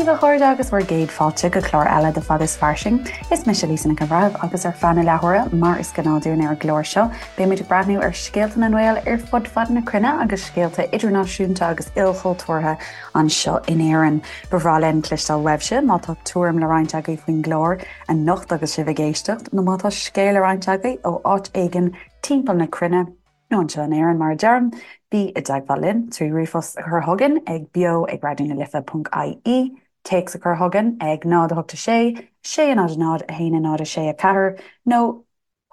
daoibh a chairde agus bhur gcéad fáilte go clár eile de Fada is Fairsing. Is mise Lisa Nic an Bhreithimh agus ar feadh na leathuaire, mar is gnáth dúinn ar an gclár seo, beimid ag breathnú ar scéalta na nGael ar fud fad na cruinne agus scéalta idirnáisiúnta agus ilchultúrtha anseo in Éirinn. Ba bhreá linn cloisteáil uaibhse má tá tuairim le roinnt agaibh faoin gclár anocht agus sibh ag éisteacht, nó má tá scéal le roinnt agaibh ó áit éigin timpeall na cruinne, nó anseo in Éirinn mar a deirim, bí i dteagmháil linn trí ríomhphost a chur chugainn ag beo ag raidió na life ponc ie, téacs a chur chugainn ag 0 8 6 6 0 0 1 0 6 4 nó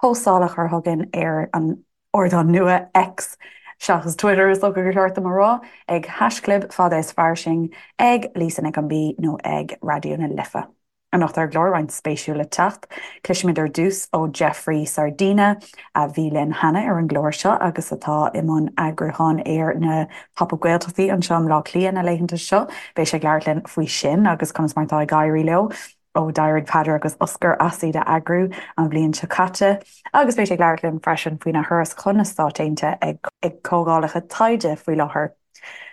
postáil a chur chugainn ar an ardán nua X, seachas Twitter is dócha gur cheart dom a rá, ag haischlib fada is fairsing, ag Lisa Nic an B nó ag Raidió na Life. Anocht ar an gclár, roinnt spéisiúil le teacht. Cloisfimid ar dtús ó Jeffrey Sardina, a bhí linn cheana ar an gclár seo agus atá i mbun eagrúcháin ar na Pop Up Gaeltachtaí anseo i mBleá Cliath na laethanta seo. Beidh sé ag labhairt linn faoi sin agus conas mar atá ag éirí leo ó d'éirigh Peadar agus Oscar as iad a eagrú an bhliain seo caite. Agus beidh sé ag labhairt linn freisin faoina thuras chun na Stáit Aontaithe ag comhdhálacha taighde faoi láthair.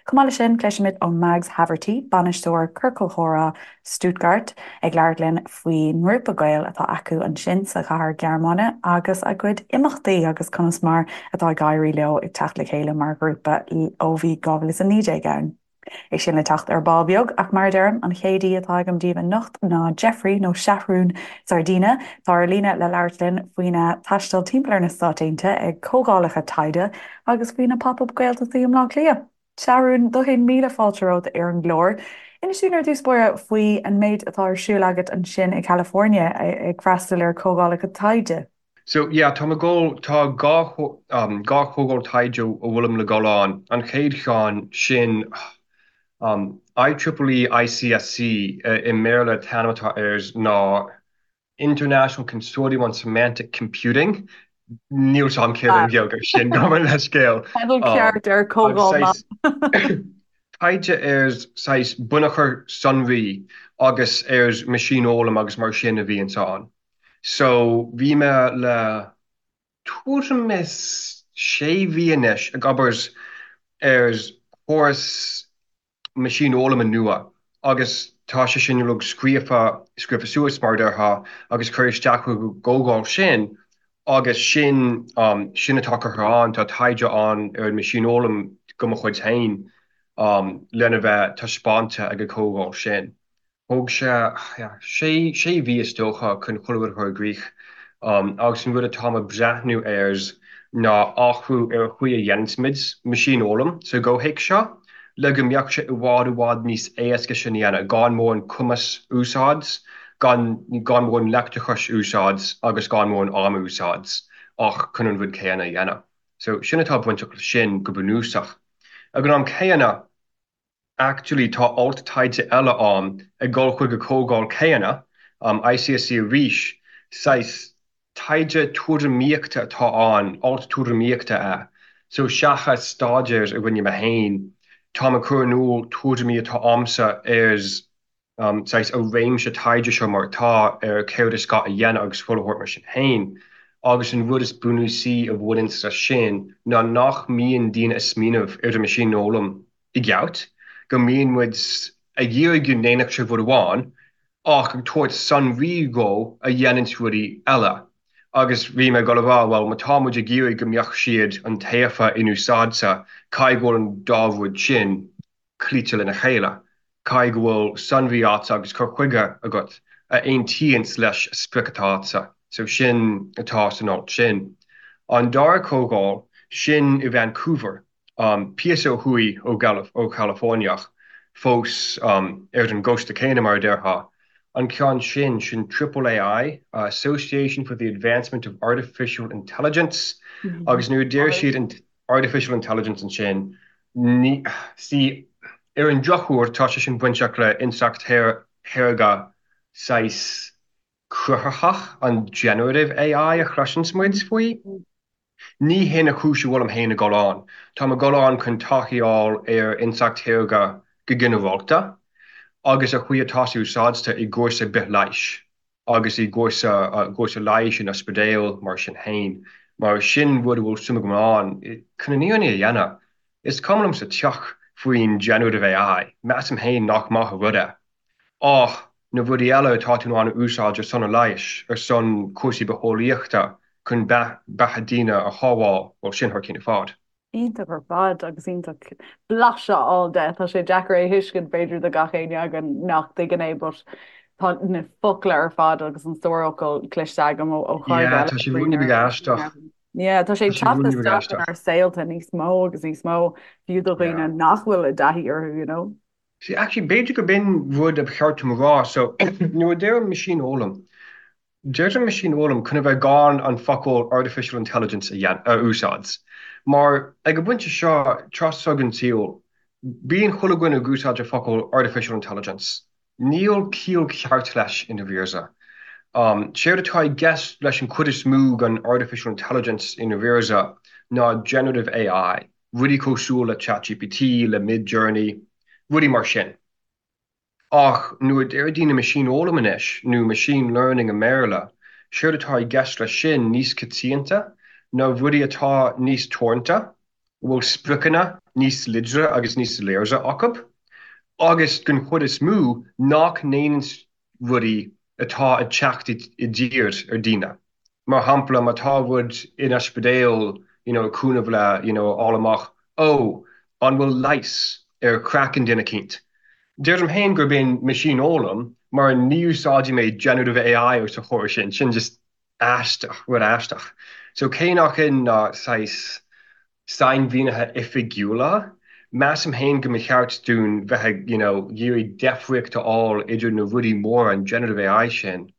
Chomh maith leis sin, cloisfimid ó Mags Haverty, bainisteoir Ciorcal Chomhrá Stuttgart, ag labhairt linn faoin ngrúpa Gael atá acu ansin sa chathair Ghearmáine agus a gcuid imeachtaí agus conas mar atá ag éirí leo ag teacht le chéile mar ghrúpa ó bhí 2019 ann. É sin le teacht ar ball beag, ach mar a deirim, an chéad aoi atá agam daoibh anocht ná Jeffrey, nó Seathrún Sardina, atá ar líne le labhairt linn faoina thaisteal timpeall ar na Stáit Aontaithe ag comhdhálacha taighde agus faoi na Pop Up Gaeltachtaí i mBleá Cliath. Seathrún, 10,000 fáilte romhat ar an gclár. Inis dúinn ar dtús báire faoi an méid atá ar siúl agat ansin i California ag freastal ar chomhdhálacha taighde. So yeah, tá mé ag dul, tá 2 chomhdháil taighde a bhfuilim le dul ann. An chéad cheann sin IEEE ICSC i mBéarla an t-ainm atá air ná International Consortium on Semantic Computing. Níl 's a'm céard an Ghaeilge ar sin, gabh mo leithscéal. Teideal ceart ar comhdháil maith. Taighde ar saghas bunachar sonraí agus ar meaisínfhoghlaim agus mar sin a bhíonns ann. So bhí mé le tuairim is sé mhí anois ag obair ar chóras meaisínfhoghlama nua agus tá sé sin uilig scríofa, scríofa suas mar a déarfá agus curtha isteach chuig an gcomhdháil sin agus sin, sin atá curtha ann, tá taighde ann ar an meaisínfhoghlaim de mo chuid féin lena bheith taispeánta ag an gcomhdháil sin. Thóg sé sé mhí is dócha chun chuile rud a chur i gcrích agus an rud atáim ag breathnú air ná athrú ar an chaoi a dhéananns muid meaisínfhoghlaim sa gcomhthéacs seo le go mbeadh sé i bhfad i bhfad níos éasca sin a dhéanamh gan mórán cumas a úsáid, gan gan mórán leictreachais a úsáid agus gan mórán am a úsáid ach chun an rud céanna a dhéanamh. So sin atá bainteach leis sin go bunúsach. Ag an am céanna, Actually tá alt taighde eile ann ag dul chuig an comhdháil céanna, ICSC arís, saghas taighde tuairimíochta atá ann, alt tuairimíochta é. So seachas staidéar a rinne mé féin, táim ag cur in iúl tuairimí atá a'msa ar saghas an réimse taighde seo mar atá, ar céard is gá a dhéanamh agus chuile shórt mar sin féin. Agus an rud is bunúsaí a bhaineanns leis sin ná nach mbíonn daoine ag smaoineamh ar an meaisínfhoghlaim i gceart, go mbíonn muid ag iarraidh go ndéanfadh sé rud amháin ach ag tabhairt sonraí dhó a dhéananns rudaí eile. Agus bhí mé ag dul a rá, bhuel, má tá muid ag iarraidh go mbeadh siad iontaofa inúsáidte, caithfidh go bhfuil an dá rud sin cloíte lena chéile. Caithfidh go bhfuil sonraí agatsa agus cur chuige agat a aontaíonns leis an sprioc atá agatsa. So sin atá san alt sin. An dara comhdháil, sin i Vancouver. Píosa ó thuaidh ó Ghaillimh, ó California ach fós ar an gcósta céanna mar a déarfá. An ceann sin, sin Triple AI, Association for the Advancement of Artificial Intelligence, agus nuair a deir siad Artificial Intelligence ansin, ní, see, ar an drochuair tá sé sin bainteach le intleacht shaorga saghas cruthaitheach, an generative AI a chloiseanns muid faoi. Ní hin an chúis a bhfuilim féin ag dul ann. Táim ag dul ann chun taithí a fháil ar intleacht shaorga go ginearálta agus an chaoi atá sé úsáidte i gcúrsa bithleighis agus i gcúrsa gcúrsa leighis in ospidéal mar sin féin, mar sin rud a bhfuil suim agam ann. Chun an fhírinne a dhéanamh, is cuma liom sa tsioc faoin generative AI, measaim féin nach maith an rud é. Ach na rudaí eile atá tú in ann a úsáid ar son an leighis, ar son cúrsaí bitheolaíochta chun beatha daoine a shábháil, bhuel, sin thar cinn ar fad. Iontach ar fad agus iontach blaiseadh a fháil de. Tá sé deacair é a thuiscint b'fhéidir do gach éinne againn nach dtuigeann é but tá na focla ar fad agus an stór focal cloiste agam ó chairde Yeah, tá sé ruainne beag aisteach. Yeah, tá sé ag teacht isteach inár saolta níos mó agus níos mó fiú do dhaoine nach bhfuil i dtaithí orthu, you know. See, actually, b'fhéidir gurb in rud a ba cheart dom a rá. So, nuair a deirim meaisínfhoghlaim, deirim meaisínfhoghlaim chun a bheith gan an focal artificial intelligence a a úsáid. Mar ag an bpointe seo, tráth seo den tsaol, bíonn chuile dhuine ag úsáid an focal artificial intelligence. Níl ciall ceart leis i ndáiríre. Séard atá i gceist leis an chuid is mó den artificial intelligence i ndáiríre ná generative AI. rudaí cosúil le ChatGPT, le Midjourney, rudaí mar sin. Ach nuair a deir daoine meaisínfhoghlaim anois, nó machine learning i mBéarla, séard atá i gceist leis sin níos coitianta ná rudaí atá níos teoranta, a bhfuil spriocanna níos láidre agus níos soiléire acu, agus den chuid is mó nach ndéanann rudaí atá ag teacht i dtír ar daoine. Mar shampla, má tá rud in ospidéal you know ag cúnamh le you know a fháil amach, ó, an bhfuil leigheas ar chraiceann duine eicínt. Deirim féin gurb in meaisínfhoghlaim mar ní úsáidfidh mé generative AI os a chomhair sin, sin just aisteach, rud aisteach. So cé nach in ná saghas sainmhínithe oifigiúla, measaim féin go mba cheart dúinn bheith ag you know iarraidh deifríocht a fháil idir na rudaí móra, an generative AI sin,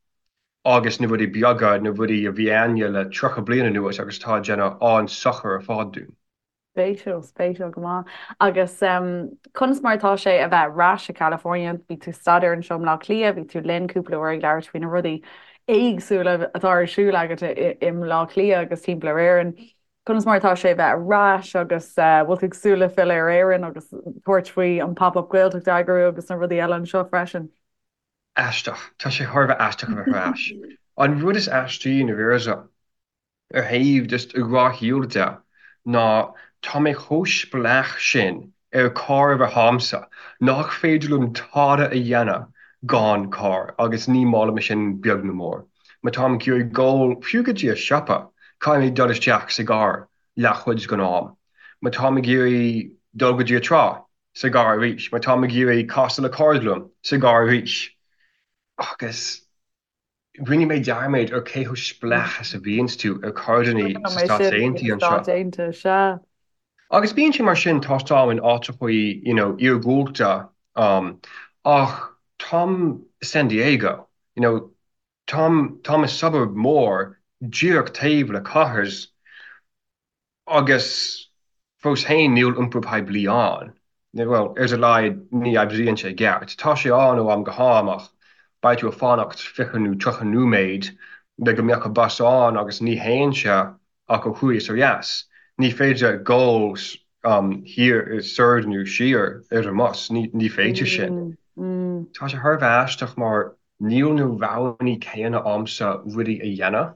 agus na rudaí beaga, na rudaí a bhí a'inne le 30 bliain anuas agus atá ag déanamh an-sochar ar fad dúinn. Spéisiúil, spéisiúil go maith. Agus conas mar atá sé a bheith ar ais i California? Bhí tú ag staidéar anseo i mBleá Cliath, bhí tú linn cúpla uair ag labhairt faoi na rudaí éagsúla atá ar siúl agat i mBleá Cliath agus timpeall ar Éirinn. Conas mar atá sé a bheith ar ais agus bhfuil tú ag súil le filleadh ar Éirinn agus tabhairt faoi an Pop-Up Gaeltacht a eagrú agus na rudaí eile anseo freisin? Aisteach. Tá sé thar a bheith aisteach a bheith ar ais. An rud is aistí i ndáiríre, ar thaobh just gnáthshaoil de, ná tá mé chomh spleách sin ar carr a bheith a'msa nach féidir liom tada a dhéanamh gan carr agus ní maith liom sin beag nó mór. Má táim ag iarraidh dul fiú go dtí an siopa, caithfidh mé dul isteach sa gcarr leathchuid den am. Má táim ag iarraidh dul go dtí an trá, sa gcarr arís. Má táim ag iarraidh casadh le cairde liom, sa gcarr arís. Agus rinne mé dearmad ar cé chomh spleách is a bhíonns tú ar carrannaí Cuimhin sa liom é Stáit sin faoi Aontaithe na anseo. Stáit Aontaithe, sea. Agus bíonn sé mar sin, tá táim in áiteachaí, you know, iargúlta, um, ach táim i San Diego, you know, táim, táim i suburb mór díreach taobh le cathair. Agus fós féin níl iompar poiblí ann. Bhuel, ar a laghad ní oibríonn sé i gceart. Tá sé ann ó am go ham ach beidh tú ag fanacht 20 nó 30 nóiméad le go mbeadh an bus ann agus ní théann sé ach ó thuaidh is ó dheas. Ní féidir dul thiar, soir nó siar ar an mbus, ní féidir sin. Tá sé thar a bheith aisteach mar níl na roghanna céanna a'msa rudaí a dhéanamh.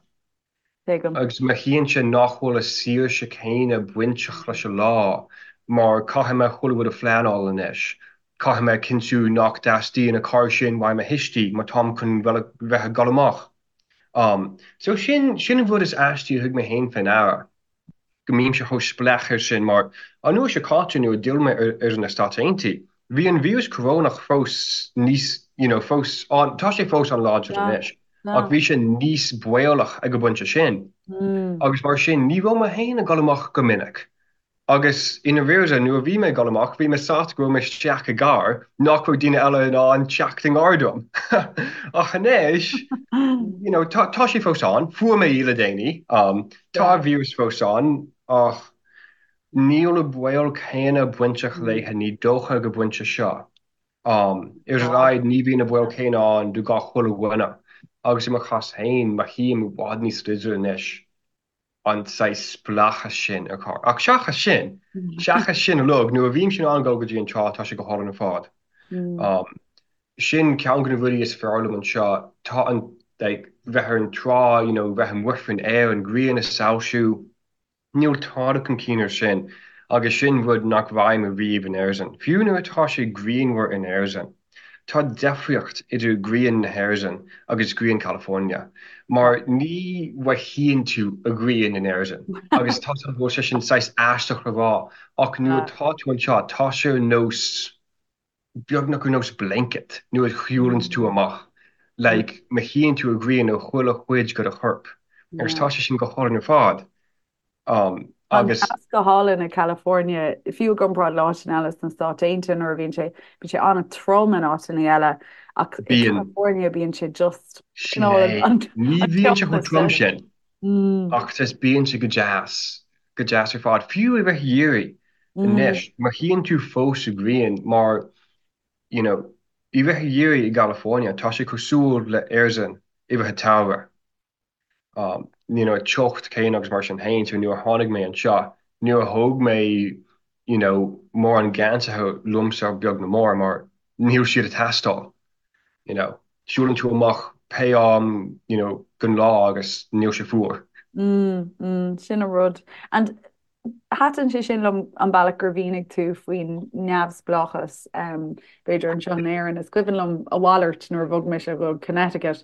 Tuigim. Agus mothaíonn sé nach bhfuil an saoirse céanna bainteach leis an lá mar caithfidh mé chuile rud a phleanáil anois. Caithfidh mé cinntiú nach dteastaíonn an carr sin uaidh mo thuistí má táim chun bheith ag dul amach. So sin, sin an rud is aistí a thug mé féin fé ndeara. go mbímse chomh spleách air sin mar an uair seo caite nuair a d'fhill mé ar na Stáit Aontaithe, bhí an víreas corónach fós níos, you know, fós an, tá sé fós an-láidir anois, ach bhí sé níos baolach ag an bpointe sin. Agus mar sin, ní raibh mé féin ag dul amach go minic. Agus i ndáiríre, nuair a bhí mé ag dul amach, bhí mé sásta go raibh mé isteach i gcarr nach raibh daoine eile in ann teacht i ngar dom. Ach anois, you know, tá, tá sé fós ann, fuair mé í le déanaí, Tá an víreas fós ann, ach níl an baol céanna bainteach léithe, ní dócha, ag an bpointe seo. Ar a laghad, ní bhíonn an baol céanna ann do gach chuile dhuine. Agus i mo chás féin, mothaím i bhfad níos láidre anois an saghas spleáchas sin ar charr. Ach seachas sin, seachas sin uilig, nuair a bhímse in ann dul go dtí an trá, tá sé go hálainn ar fad. Sin ceann de na rudaí is fearr liom anseo. Tá an, like, bheith ar an trá, you know, bheith amuigh faoin aer, an ghrian ag soilsiú, níl tada chun cinn air sin agus sin rud nach bhfaighim ariamh in Éirinn. Fiú nuair atá sé grianmhar in Éirinn. Tá deifríocht idir grian na hÉireann agus grian California, mar ní mhothaíonn tú an ghrian in Éirinn, agus tá go bhfuil sé sin saghas aisteach le rá, ach nuair atá tú anseo, tá sé ar nós, beagnach ar nós blanket nuair a shiúlann tú amach, like, mothaíonn tú an ghrian ar chuile chuid de do chorp, agus tá sé sin go hálainn ar fad. Tá an teas go hálainn i California, fiú i gcomparáid le áiteanna eile sna Stáit Aontaithe nuair a bhíonn sé, bíonn sé an-trom in áiteanna eile ach i California bíonn sé just Sin é. Ní bhíonn sé chomh trom sin ach just bíonn sé go deas, go deas ar fad. Fiú i rith an gheimhridh anois, mothaíonn tú fós an ghrian mar you know i rith an gheimhridh i gCalifornia tá sé cosúil le Éirinn i rith an tsamhraidh. you know, teocht céanna agus mar sin féin, so nuair a tháinig mé anseo, níor thóg mé, you know, mórán geansaithe liomsa beag ná mór mar níl siad ag teastáil, you know. Siúlann tú amach pé am, you know, den lá agus níl sé fuar. Mm, mm, sin an rud. And Thaitin sé sin liom an bealach gur mhínigh tú faoin neamhspleáchas, b'fhéidir anseo in Éirinn. Is cuimhin liom a mhalairt nuair a bhog mise go Connecticut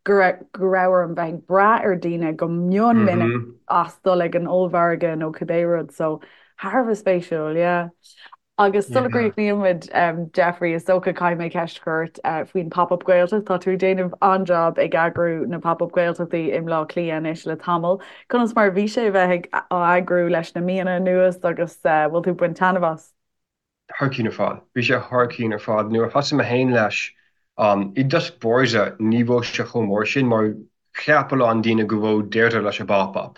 go raibh orm bheith ag brath ar daoine go mion minic as dul ag an ollmhargadh nó cibé rud. So thar a bheith spéisiúil, yeah. Agus sula gcríochnaíonn muid, Jeffrey, is dócha caithfidh mé ceist a chur ort faoin Pop-Up Gaeltacht. Tá tú ag déanamh an-jab ag eagrú na Pop-Up Gaeltachtaí i mBleá Cliath anois le tamall. Conas mar a bhí sé a bheith ag á eagrú leis na míonna anuas agus bhfuil tú ag baint taitneamh as? Thar cionn ar fad. Bhí sé thar cionn ar fad. Nuair a thosaigh mé féin leis, i dtosach báire ní raibh sé chomh mór sin mar Cheap a lán daoine go raibh deireadh leis an bpop-up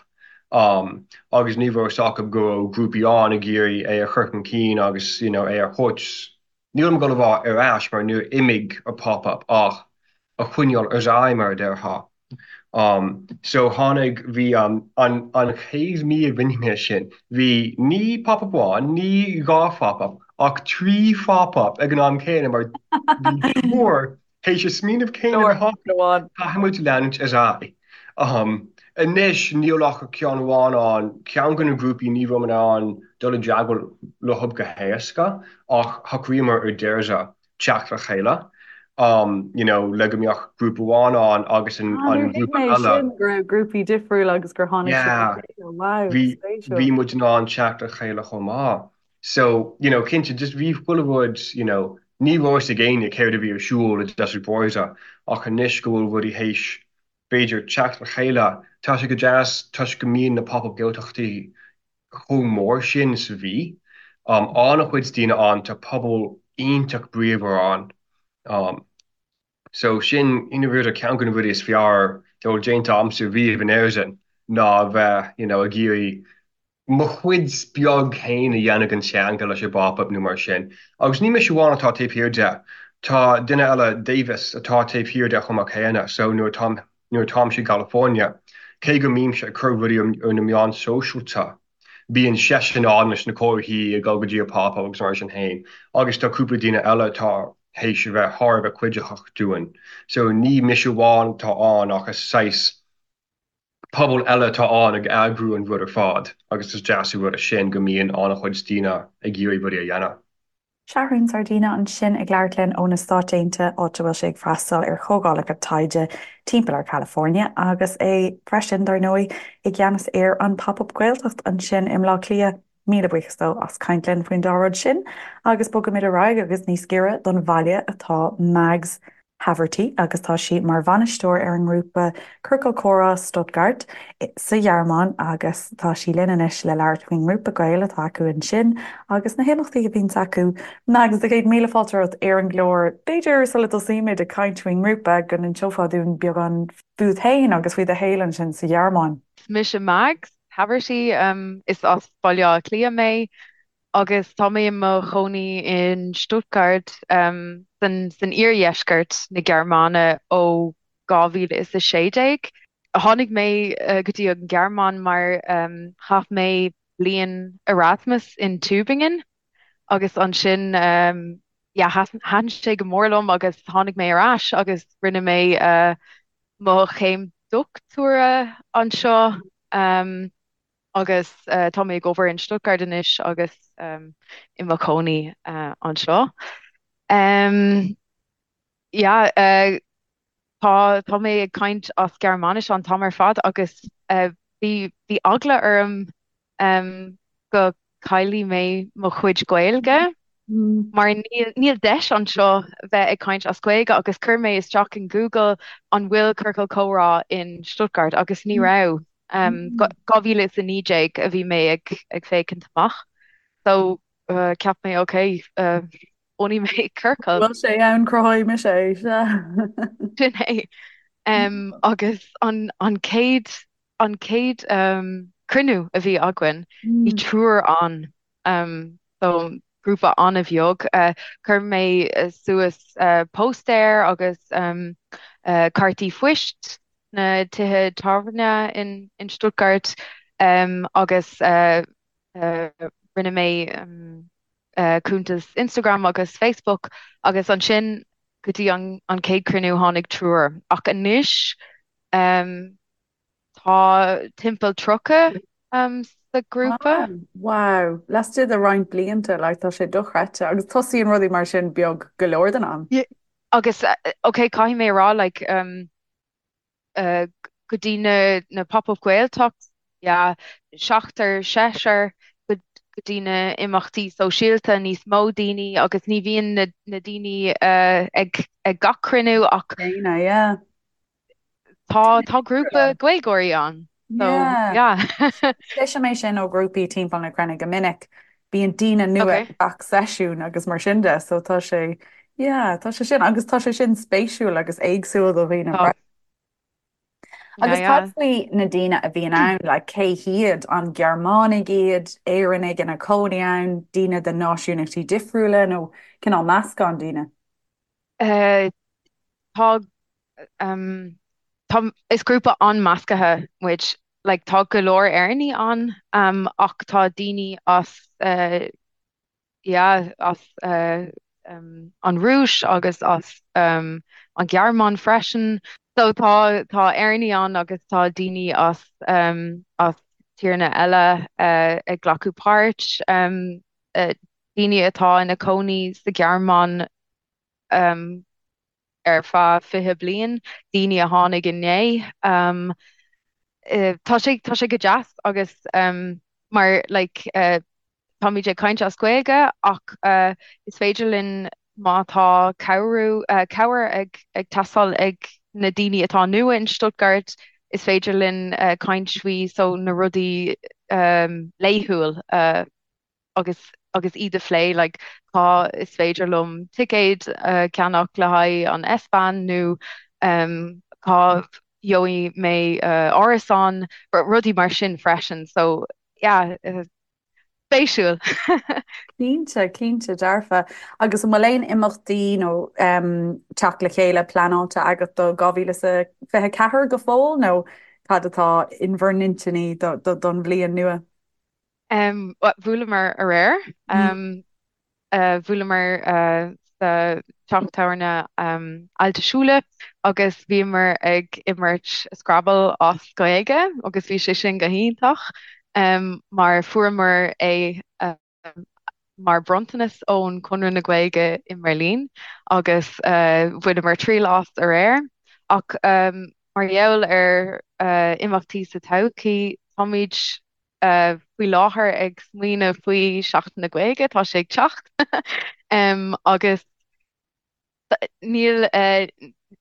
agus ní raibh a fhios acu go raibh grúpaí ann ag iarraidh é a chur chun cinn agus you know é a thabhairt, nílim ag dul a rá ar ais mar níor imigh an pop-up ach a choinneáil ar aghaidh mar a déarfá. So tháinig, bhí an an chéad mí a rinne mé sin, bhí ní pop-up amháin, ní dhá phop-up ach trí phop-up ag an am céanna mar bhí triúr Théis an smaoineamh céanna a bheith acu, caithfidh muid leanúint ar aghaidh. Anois níl ach ceann amháin ann, ceann de na grúpaí ní raibh in ann dul i dteagmháil leo go héasca ach shocraíomar ar deireadh teacht le chéile you know le go mbeadh grúpa amháin ann agus an grúpa eile. Sin go raibh grúpaí difriúla agus gur tháinig siad le chéile. Wow, spéisiúil. Bhí muid in ann teacht le chéile chomh maith. So, you know, cinnte, just bhí chuile rud, you know, ní raibh fhios ag éinne céard a bhí ar siúl i dtosach báire ach anois go bhfuil rudaí théis, b'fhéidir, teacht le chéile, tá sé go deas toisc go mbíonn na Pop-Up Gaeltachtaí chomh mór sin sa mhí. Um, an-chuid daoine ann, tá pobal iontach bríomhar ann. Um, So sin, i ndáiríre, ceann de na rudaí is fearr dá bhfuil déanta agamsa riamh in Éirinn ná a bheith, you know, ag iarraidh mo chuid beag féin a dhéanamh den teanga leis an bPop-Up nó mar sin. Agus ní mise amháin atá taobh thiar de. Tá duine eile, Davis, atá taobh thiar de chomh maith céanna. So nuair atáim, nuair atáimse i gCalifornia, cé go mbímse ag cur rudaí ar na meáin sóisialta, Bíonn seisean ann leis na comharthaí ag dul go dtí an pop-up agus mar sin féin agus tá cúpla daoine eile atá théis a bheith thar a bheith cuiditheach dúinn. So ní mise amháin atá ann ach is saghas pobal eile atá ann ag eagrú an rud ar fad agus is deas an rud é sin go mbíonn an-chuid daoine ag iarraidh rudaí a dhéanamh. Seathrún Sardina ansin ag labhairt linn ó na Stáit Aontaithe, áit a bhfuil sé ag freastal ar chomhdhálacha taighde timpeall ar California, agus é freisin, dar ndóigh, i gceannas ar an Pop-Up Gaeltacht ansin i mBleá Cliath. Míle buíochas dó as caint linn faoin dá rud sin, agus bogaimid ar aghaidh agus níos giorra don bhaile atá Mags Haverty agus tá sí mar bhainisteoir ar an ngrúpa Ciorcal Comhrá Stuttgart sa Ghearmáin agus tá sí linn anois le labhairt faoin ngrúpa Gael atá acu ansin agus na himeachtaí a bhíonns acu. Mags, a chéad míle fáilte romhat ar an gclár. B'fhéidir sula dtosaímid ag caint faoin ngrúpa go n-inseofá dúinn beagán fút féin agus faoi do shaol ansin sa Ghearmáin. Is mise Mags Haverty, is as Baile Átha Cliath mé. Agus tá mé i mo chónaí in Stuttgart san iardheisceart na Gearmáine ó 2016. Tháinig mé go dtí an Ghearmáin mar chaith mé bliain Erasmus in Tübingen agus ansin yeah thaitin sé go mór liom agus tháinig mé ar ais agus rinne mé mo chéim dochtúra anseo. Agus tá mé ag obair in Stuttgart anois agus i mo chónaí anseo. Yeah, tá tá mé ag caint as Gearmáinis an t-am ar fad agus bhí bhí eagla orm go caillfidh mé mo chuid Gaeilge mar níl níl deis anseo bheith ag caint as Gaeilge agus chuir mé isteach in Google an bhfuil ciorcal comhrá in Stuttgart agus ní raibh. 2019 a bhí mé ag ag féachaint amach so cheap mé ok bunóidh mé ciorcal. Bhfuil sé ann cruthóidh mise é, sea. Sin é. Agus an an chéad an chéad cruinniú a bhí againn, bhí triúr ann. So grúpa an-bheag. Chuir mé suas póstaer agus cártaí phoist sna tithe tábhairne in in Stuttgart agus rinne mé cuntas Instagram agus Facebook agus ansin go dtí an an chéad cruinniú tháinig triúr ach anois tá timpeall 30 sa ghrúpa. Wow, laistigh de roinnt blianta, like tá sé dochreidte agus tosaíonn rudaí mar sin beag go leor den am. Agus ok caithfidh mé a rá like go dtí na na Pop-Up Gaeltacht, yeah, seachtar, seisear, go dtí na imeachtaí sóisialta, níos mó daoine agus ní bhíonn na na daoine ag ag gach cruinniú ach Daoine, yeah. tá tá grúpa Gaeilgeoirí ann. So, Yeah. yeah. Cloisim é sin ó ghrúpaí timpeall na cruinne go minic. Bíonn daoine nua Okay. ag gach seisiún agus mar sin de, so tá sé, yeah, tá sé sin, agus tá sé sin spéisiúil agus éagsúil do dhaoine Tá. freisin. Yeah, Agus cad yeah. faoi na daoine a bhíonn ann, like cé hiad, an Gearmánaigh iad, Éireannaigh ina cónaí ann, daoine de náisiúnachtaí difriúla nó cineál meascán daoine? Uh, tá um, tá is grúpa an-measctha muid. Like, tá go leor Éireannaigh ann um, ach tá daoine as uh, yeah, as uh, um, an Rúis agus as um, an Ghearmáin freisin. So tá tá Éireannaigh ann agus tá daoine as um, as tíortha eile uh, ag glacadh páirt, um, uh, daoine atá ina cónaí sa Ghearmáin um, ar feadh 20 bliain, daoine a tháinig inné. Um, tá sé tá sé go deas agus um, mar like, uh, táimid ag caint as Gaeilge ach uh, is féidir linn má tá cabhrú uh, cabhair ag, ag teastáil ag na daoine atá nua in Stuttgart, is féidir linn uh, caint faoi so na rudaí um, laethúil uh, agus agus iad a phlé like cá is féidir liom ticéad a cheannach le haghaidh an S-Bahn nó um, cá gheobhaidh mé uh, árasán, rudaí mar sin freisin. So yeah, uh, spéisiúil. Cinnte, cinnte dearfa. Agus an bhfuil aon imeachtaí nó um, teacht le chéile pleanáilte agat do 2024 go fóill nó cad atá in bhur n-intinní don bhliain nua? Bhuaileamar aréir. Bhuaileamar sa teach tábhairne Alte Schule agus bhíomar ag imirt Scrabble as Gaeilge agus bhí sé sin go hiontach mar fuaireamar é mar bronntanas ón Conradh na Gaeilge i mBeirlín agus bhaineamar triail as aréir. Ach mar gheall ar imeachtaí sa todhchaí, táimid faoi láthair ag smaoineamh faoi Seachtain na Gaeilge, tá sé ag teacht agus níl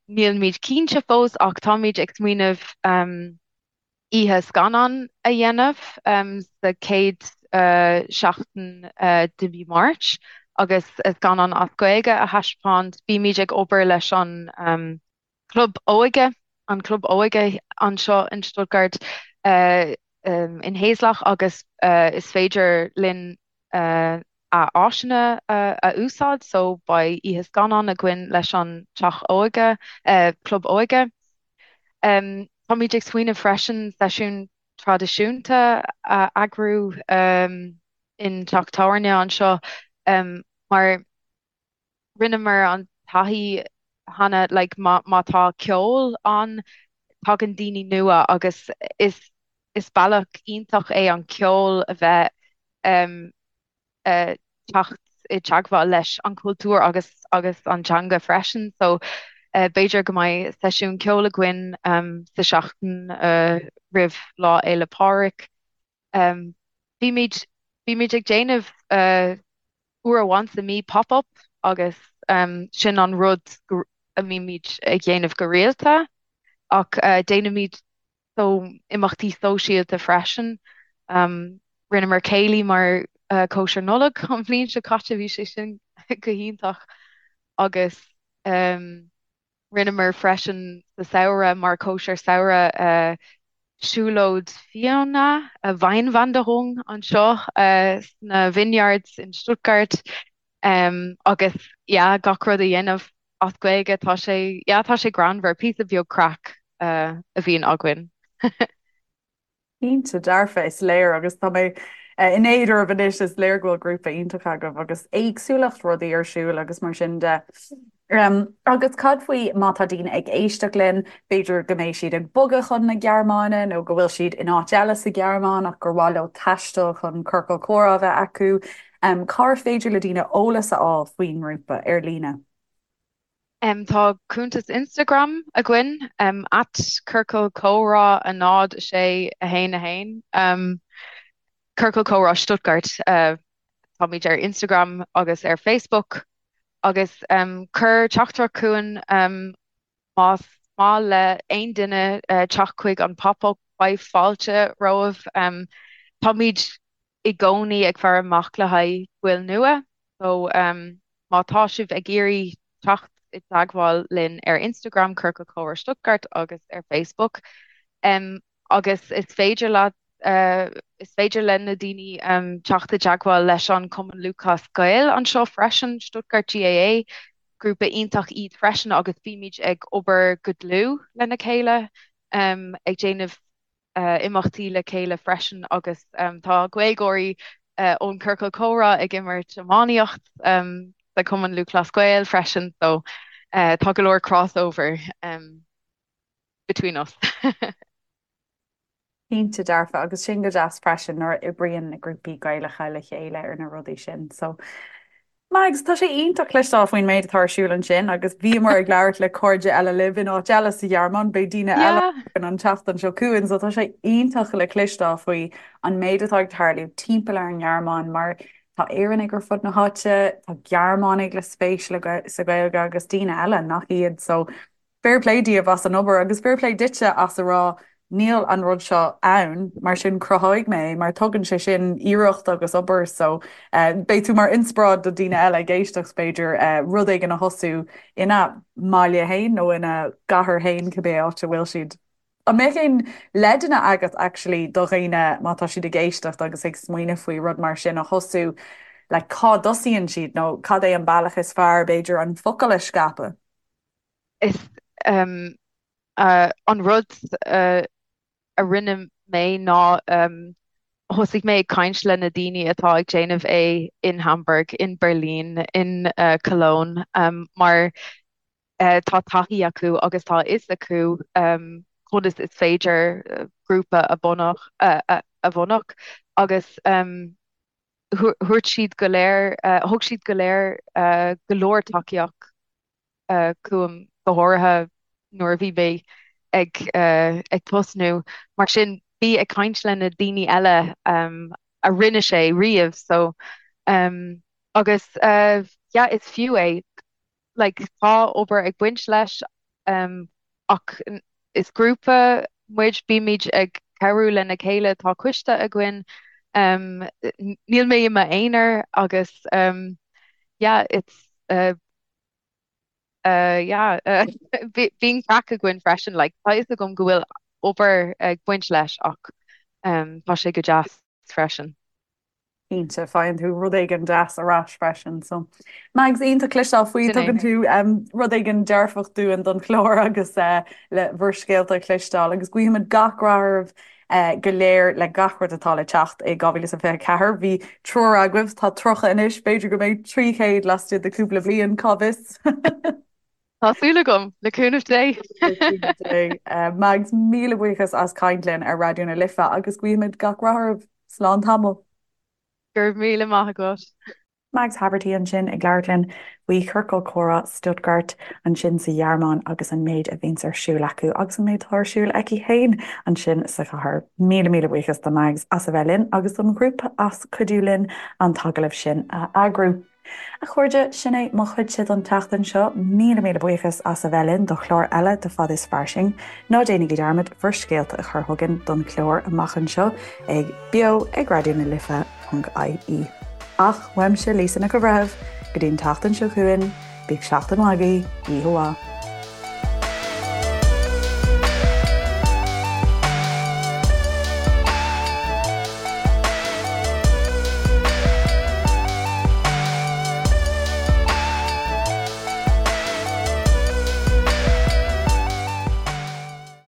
nílimid cinnte fós ach táimid ag smaoineamh oíche scannán a dhéanamh sa chéad seachtain de mhí Mháirt agus scannán as Gaeilge a thaispeáint. Bímid ag obair leis an Club Óige, an Club Óige anseo in Stuttgart in Haslach agus is féidir linn a áiseanna a úsáid so beidh oíche scannán againn leis an Teach Óige, Club Óige. Táimid ag smaoineamh freisin seisiún traidisiúnta a eagrú in teach tábhairne anseo mar rinneamar an taithí cheana like má má tá ceol ann tagann daoine nua agus is is bealach iontach é an ceol a bheith um teacht i dteagmháil leis an chultúr agus agus an teanga freisin. So b'fhéidir go mbeidh seisiún ceoil againn sa seachtain roimh Lá Fhéile Pádraig. Bímid bímid ag déanamh uair amháin sa mí pop-up agus sin an rud a mbímid ag déanamh go rialta ach déanaimid so imeachtaí sóisialta freisin. Rinneamar céilí mar cóisir Nollag an bhliain seo caite, bhí sé sin go hiontach agus rinneamar freisin sa samhradh mar cóisir samhraidh siúlóid fíona, Weinwanderung, anseo sna vineyards in Stuttgart agus yeah gach rud a dhéanamh as Gaeilge, tá sé, yeah, tá sé greannmhar, píosa beag craic a bhíonn againn. Cinnte dearfa, is léir agus tá mé in éad oraibh anois, is léir go bhfuil grúpa iontach agaibh agus éagsúlacht rudaí ar siúl agus mar sin de. Agus cad faoi má tá daoine ag éisteacht linn, b'fhéidir go mbeidh siad ag bogadh chun na Gearmáine nó go bhfuil siad in áit eile sa Ghearmáin ach gur mhaith leo taisteal chun ciorcal comhrá a bheith acu. Cár féidir le daoine eolas a fháil faoin ngrúpa ar líne? Tá cuntas Instagram againn, at Ciorcal Comhrá 0 6 1 1, Ciorcal Comhrá Stuttgart. Táimid ar Instagram agus ar Facebook agus cuir teachtaireacht chugainn más maith le aon duine teacht chuig an pop-up, beidh fáilte romhaibh. Táimid i gcónaí ag faire amach le haghaidh baill nua so má tá sibh ag iarraidh teacht i dteagmháil linn ar Instagram Ciorcal Comhrá Stuttgart agus ar Facebook agus is féidir leat is féidir le na daoine teacht i dteagmháil leis an Cumann Lúthchleas Gael anseo freisin, Stuttgart GAA, grúpa iontach iad freisin agus bímid ag obair go dlúth lena chéile ag déanamh imeachtaí le chéile freisin agus tá Gaeilgeoirí ón Ciorcal Comhrá ag imirt iománaíocht sa Cumann Lúthchleas Gael freisin so tá go leor crossover between us. Cinnte dearfa agus sin go deas freisin nuair a oibríonn na grúpaí Gaelacha le chéile ar na rudaí sin so Mags, tá sé iontach cloisteáil faoin méid atá ar siúl ansin agus bhíomar ag labhairt le cairde eile libh in áit eile sa Ghearmáin, beidh daoine eile againn an tseachtain seo chugainn so tá sé iontach le cloisteáil faoi an méid atá ag tarlú timpeall ar an nGearmáin mar tá Éireannaigh ar fud na háite, tá Gearmánaigh le spéis sa Ghaeilge agus daoine eile nach iad so Fair play daoibh as an obair agus fair play duitse as a rá níl an rud seo ann, mar sin cruthóidh mé é mar tugann sé sin iarracht agus obair so beidh tú mar inspioráid do daoine eile ag éisteacht b'fhéidir rud éigin a thosú ina mbaile féin nó ina gcathair féin cibé áit a bhfuil siad. An mbeadh aon leideanna agat actually do dhaoine má tá siad ag éisteacht agus ag smaoineamh faoi rud mar sin a thosú like cá dtosaíonn siad nó cad é an bealach is fearr b'fhéidir an focal a scaipeadh? Is an rud a rinne mé ná thosaigh mé ag caint le na daoine atá ag déanamh é in Hamburg, in Berlin, in Cologne mar tá taithí acu agus tá a fhios acu conas is féidir grúpa a bhunadh agus thabhairt siad go léir, thug siad go léir go leor tacaíocht chugam, go háirithe nuair a bhí mé ag ag tosnú. Mar sin, bí ag caint le na daoine eile a rinne sé riamh so agus yeah is fiú é. Like tá obair ag baint leis ach is grúpa muid, bímid ag cabhrú lena chéile, tá coiste againn, níl mé i m'aonar agus yeah it's yeah bíonn craic againn freisin like tá fhios agam go bhfuil obair ag baint leis ach tá sé go deas freisin. Cinnte, faigheann tú rud éigin deas ar ais freisin so Mags, iontach cloisteáil faoi, tugann tú rud éigin dearfach dúinn don chlár agus le bhur scéalta a chloisteáil agus guímid gach rath oraibh go léir le gach rud atá le teacht i 2024. Bhí triúr agaibh, tá 30 anois, b'fhéidir go mbeidh 300 laistigh de cúpla bliain, cá bhfios? Tá súil agam, le cúnamh Dé! Le cúnamh Dé. Mags, míle buíochas as caint linn ar Raidió na Life agus guímid gach rath oraibh. Slán tamall. Go raibh míle maith agat. Mags Haverty ansin ag labhairt linn faoi Chiorcal Comhrá Stuttgart ansin sa Ghearmáin agus an méid a bhíonns ar siúl acu agus an méid atá ar siúl aici féin ansin sa chathair. Míle míle buíochas do Mags as a bheith linn agus don ghrúpa as cuidiú linn an t-agallamh sin a eagrú. A chairde, sin é mo chuidse don tseachtain seo. Míle míle buíochas as a bheith linn do chlár eile de Fad is Fairsing. Ná déanaigí dearmad bhur scéalta a chur chugainn don chlár amach anseo ag beo ag Raidió na Life ponc ie. Ach uaimse Lisa Nic an Bhreithimh, go dtí an tseachtain seo chugainn, bíodh seachtain mhaith agaibh, oíche mhaith.